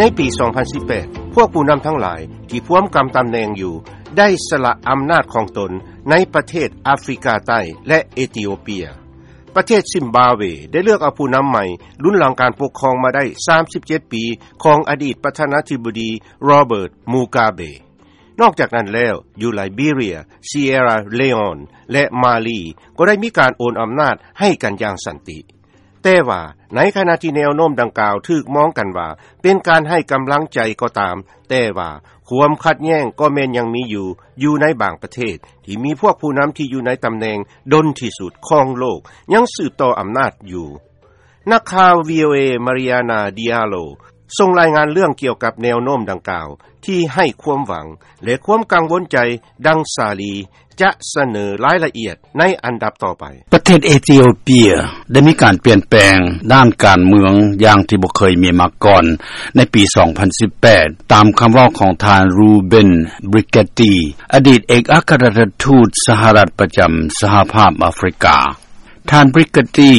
ໃນປີ ສອງພັນສິບແປດ ພວກຜູ້ນຳທັງຫຼາຍທີ່ພວມກຳຕຳແໜ່ງຢູ່ ໄດ້ສະຫຼະອຳນາດຂອງຕົນໃນປະເທດອາຟຣິກາໃຕ້ ແລະ ເອທິໂອເປຍ. ປະເທດຊິມບາເວ ໄດ້ເລືອກເອົາຜູ້ນຳໃໝ່ ລຸນຫຼັງການປົກຄອງມາໄດ້ ສາມສິບເຈັດປີ ຂອງອະດີດປະທານາທິບໍດີ ໂຣເບີດ ມູກາເບ. ນອກຈາກນັ້ນແລ້ວ ຢູ່ໄລເບເຣຍ, ຊີເອຣາເລອອນ ແລະ ມາລີ ກໍໄດ້ມີການໂອນອຳນາດໃຫ້ກັນຢ່າງສັນຕິ. ແຕ່ວ່າໃນຂະນະທີ່ແນວໂນ້ມດັ່ງກ່າວຖືກມອງກັນວ່າເປັນການໃຫ້ກຳລັງໃຈກໍຕາມ, ແຕ່ວ່າຄວາມຂັດແຍ້ງກໍແມ່ນຍັງມີຢູ່, ຢູ່ໃນບາງປະເທດທີ່ມີພວກຜູ້ນຳທີ່ຢູ່ໃນຕຳແໜ່ງດົນທີ່ສຸດຂອງໂລກ ຍັງສືບຕໍ່ອຳນາດຢູ່. ນັກຂ່າວ ວີໂອເອ Mariana Diallo ສົ່ງລາຍງານເລື່ອງກ່ຽວກັບແນວໂນ້ມດັ່ງກ່າວ ທີ່ໃຫ້ຄວາມຫວັງ ແລະ ຄວາມກັງວົນໃຈ ດັ່ງສາລີຈະສະເໜີລາຍລະອຽດໃນອັນດັບຕໍ່ໄປ. ປະເທດເອທິໂອເປຍໄດ້ມີການປ່ຽນແປງດ້ານການເມືອງຢ່າງທີ່ບໍ່ເຄີຍມີມາກ່ອນໃນປີ ສອງພັນສິບແປດ ຕາມຄຳເວົ້າຂອງທ່ານ Ruben Brigetti ອະດີດເອກອັກຄະລັດຖະທູດສະຫະລັດປະຈຳສະຫະພາບອາຟຣິກາ. ທ່ານ Brigetti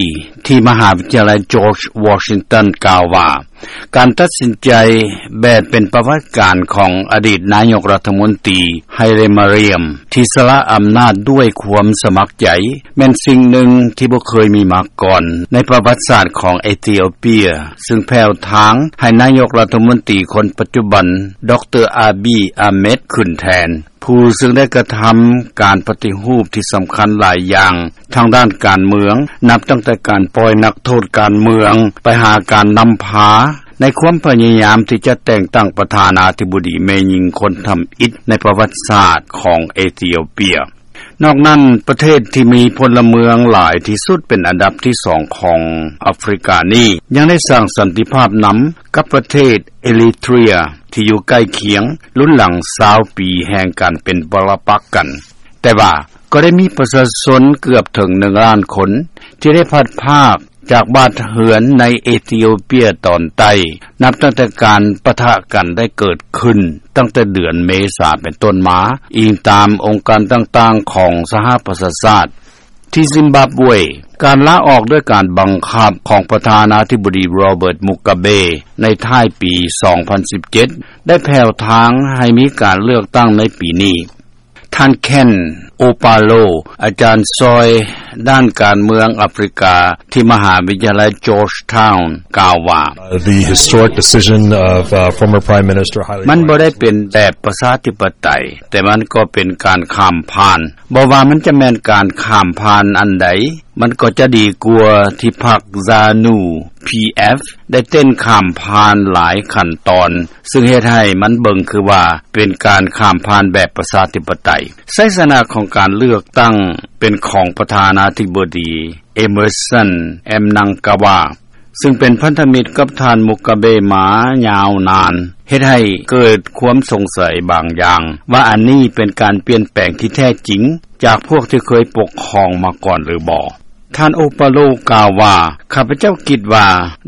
ທີ່ມະຫາວິທະຍາໄລ George Washington ກ່າວວ່າ ການຕັດສິນໃຈແບບເປັນປະຫວັດການຂອງອະດີດນາຍົກລັດຖະມົນຕີ Hailemariam ທີ່ສະຫຼະອຳນາດດ້ວຍຄວາມສະໝັກໃຈ ແມ່ນສິ່ງໜຶ່ງທີ່ບໍ່ເຄີຍມີມາກ່ອນໃນປະຫວັດສາດຂອງເອທິໂອເປຍ, ຊຶ່ງແຜ່ວທາງໃຫ້ນາຍົກລັດຖະມົນຕີຄົນປັດຈຸບັນ ດຣ ອາບີ ອາເມັດ ຂຶ້ນແທນ. ຜູ້ຊຶ່ງໄດ້ກະທຳການປະຕິຮູບທີ່ສຳຄັນຫຼາຍຢ່າງທາງດ້ານການເມືອງ ນັບຕັ້ງແຕ່ການປ່ອຍນັກໂທດການເມືອງໄປຫາການນຳພາ ໃນຄວາມພະຍາຍາມທີ່ຈະແຕ່ງຕັ້ງປະທານາທິບໍດີແມ່ຍິງຄົນທຳອິດໃນປະຫວັດສາດຂອງເອທິໂອເປຍ. ນອກນັ້ນ, ປະເທດທີ່ມີພົນລະເມືອງຫຼາຍທີ່ສຸດເປັນອັນດັບທີສອງຂອງອາຟຣິການີ້ ຍັງໄດ້ສ້າງສັນຕິພາບນຳກັບປະເທດເອຣິເທຣຍ ທີ່ຢູ່ໃກ້ຄຽງ ລຸນຫຼັງຊາວປີແຫ່ງການເປັນປະລະປັກກັນ. ແຕ່ວ່າກໍໄດ້ມີປະຊາຊົນເກືອບເຖິງໜຶ່ງລ້ານຄົນ ທີ່ໄດ້ພັດພາກຈາກບ້ານເຮືອນໃນເອທິໂອເປຍຕອນໃຕ້ ນັບຕັ້ງແຕ່ການປະທະກັນໄດ້ເກີດຂຶ້ນ ຕັ້ງແຕ່ເດືອນເມສາເປັນຕົ້ນມາ, ອີງຕາມອົງການຕ່າງໆຂອງສະຫະປະຊາຊາດ. ທີ່ຊິມບາບເວ, ການລາອອກດ້ວຍການບັງຄັບຂອງປະທານາທິບໍດີໂຣເບີດ ມຸກາເບ ໃນທ້າຍປີ ສອງພັນສິບເຈັດ ໄດ້ແຜ່ວທາງໃຫ້ມີການເລືອກຕັ້ງໃນປີນີ້. ທ່ານ ເຄນ ໂອປາໂລ ອາຈານຊ່ອຍດ້ານການເມືອງອາຟຣິກາ ທີ່ມະຫາວິທະຍາໄລ Georgetown ກ່າວວ່າ The historic decision of, uh, former Prime Minister Haile ມັນບໍ່ໄດ້ເປັນແບບປະຊາທິປະໄຕ, ແຕ່ມັນກໍເປັນການຂ້າມຜ່ານ. ບໍ່ວ່າມັນຈະແມ່ນການຂ້າມຜ່ານອັນໃດ, ມັນກໍຈະດີກວ່າທີ່ພັກ ZANU PF ໄດ້ເຕັ້ນຂ້າມຜ່ານຫຼາຍຂັ້ນຕອນ, ຊຶ່ງເຮັດໃຫ້ມັນເບິ່ງຄືວ່າເປັນການຂ້າມຜ່ານແບບປະຊາທິປະໄຕ. ໄຊຊະນະຂອງການເລືອກຕັ້ງເປັນຂອງປະທານາທິບໍດີ Emmerson Mnangagwa ຊຶ່ງເປັນພັນທະມິດກັບທ່ານ ມຸກາເບ ມາຍາວນານ, ເຮັດໃຫ້ເກີດຄວາມສົງໄສບາງຢ່າງ ວ່າອັນນີ້ເປັນການປ່ຽນແປງທີ່ແທ້ຈິງຈາກພວກທີ່ເຄີຍປົກຄອງມາກ່ອນຫຼືບໍ່. ທ່ານ ໂອປາໂລ ກ່າວວ່າ, ຂ້າພະເຈົ້າຄິດວ່າ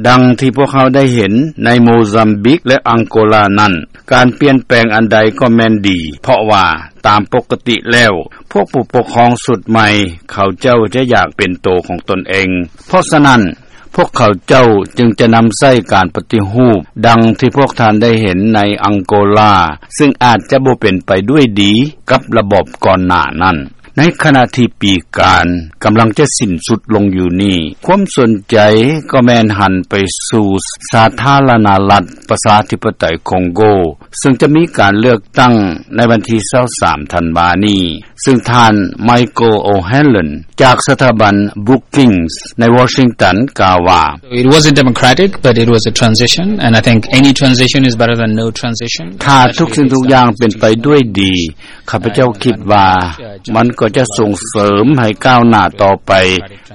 ດັ່ງທີ່ພວກເຮົາໄດ້ເຫັນໃນໂມຊຳບິກ ແລະ ອັງໂກລານັ້ນ, ການປ່ຽນແປງອັນໃດກໍແມ່ນດີ, ເພາະວ່າຕາມປົກກະຕິແລ້ວ ພວກຜູ້ປົກຄອງຊຸດໃໝ່ ເຂົາເຈົ້າຈະຢາກເປັນໂຕຂອງຕົນເອງ. ເພາະສະນັ້ນ, ພວກເຂົາເຈົ້າຈຶ່ງຈະນຳໃຊ້ການປະຕິຮູບ ດັ່ງທີ່ພວກທ່ານໄດ້ເຫັນໃນອັງໂກລາ, ຊຶ່ງອາດຈະບໍ່ເປັນໄປດ້ວຍດີກັບລະບອບກ່ອນໜ້ານັ້ນ. ໃນຂະນະທີ່ປີການກຳລັງຈະສິ້ນສຸດລົງຢູ່ນີ້, ຄວາມສົນໃຈກໍແມ່ນຫັນໄປສູ່ສາທາລະນະລັດປະຊາທິປະໄຕຄອງໂກ, ຊຶ່ງຈະມີການເລືອກຕັ້ງໃນວັນທີຊາວສາມທັນວານີ້, ຊຶ່ງທ່ານ Michael O'Hanlon ຈາກສະຖາບັນ Brookings ໃນວໍຊິງຕັນ ກ່າວວ່າ It wasn't democratic, but it was a transition, and I think any transition is better than no transition. ຖ້າທຸກສິ່ງທຸກຢ່າງເປັນໄປດ້ວຍດີ, ຂ້າພະເຈົ້າຄິດວ່າມັນກໍຈະສົ່ງເສີມໃຫ້ກ້າວໜ້າຕໍ່ໄປ,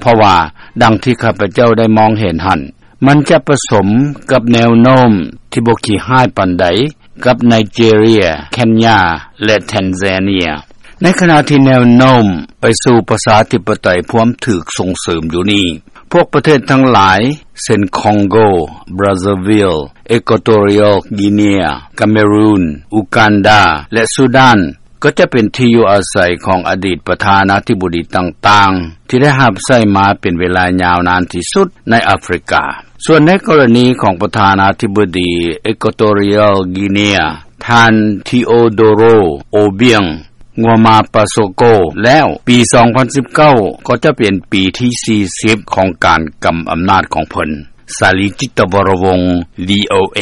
ເພາະວ່າດັ່ງທີ່ຂ້າພະເຈົ້າໄດ້ມອງເຫັນຫັ້ນ, ມັນຈະປະສົມກັບແນວໂນ້ມທີ່ບໍ່ຂີ້ຮ້າຍປານໃດກັບໄນເຈເຣຍ, ເຄນຍາ ແລະ ແທນຊາເນຍ. ໃນຂະນະທີ່ແນວໂນ້ມໄປສູ່ປະຊາທິປະໄຕພວມຖືກສົ່ງເສີມຢູ່ນີ້, ພວກປະເທດທັງຫຼາຍ ເຊັ່ນ ຄອງໂກ, ບຣາຊາວິລ, ເອກົວໂຕຣຽວ ກີເນຍ, ກາເມຣູນ, ອູການດາ ແລະ ຊູດານ ກໍຈະເປັນທີ່ຢູ່ອາໄສຂອງອະດີດປະທານາທິບໍດີຕ່າງໆ ທີ່ໄດ້ຮັບໃຊ້ມາເປັນເວລາຍາວນານທີ່ສຸດໃນອາຟຣິກາ. ສ່ວນໃນກໍລະນີຂອງປະທານາທິບໍດີ Equatorial Guinea ທ່ານ Teodoro Obiang Nguema Pasoco ແລ້ວ ປີ ສອງພັນສິບເກົ້າ ກໍຈະເປັນປີທີ ສີ່ສິບ ຂອງການກຳອຳນາດຂອງເພິ່ນ. ສາລີ ຈິດຕະວໍລະວົງ VOA.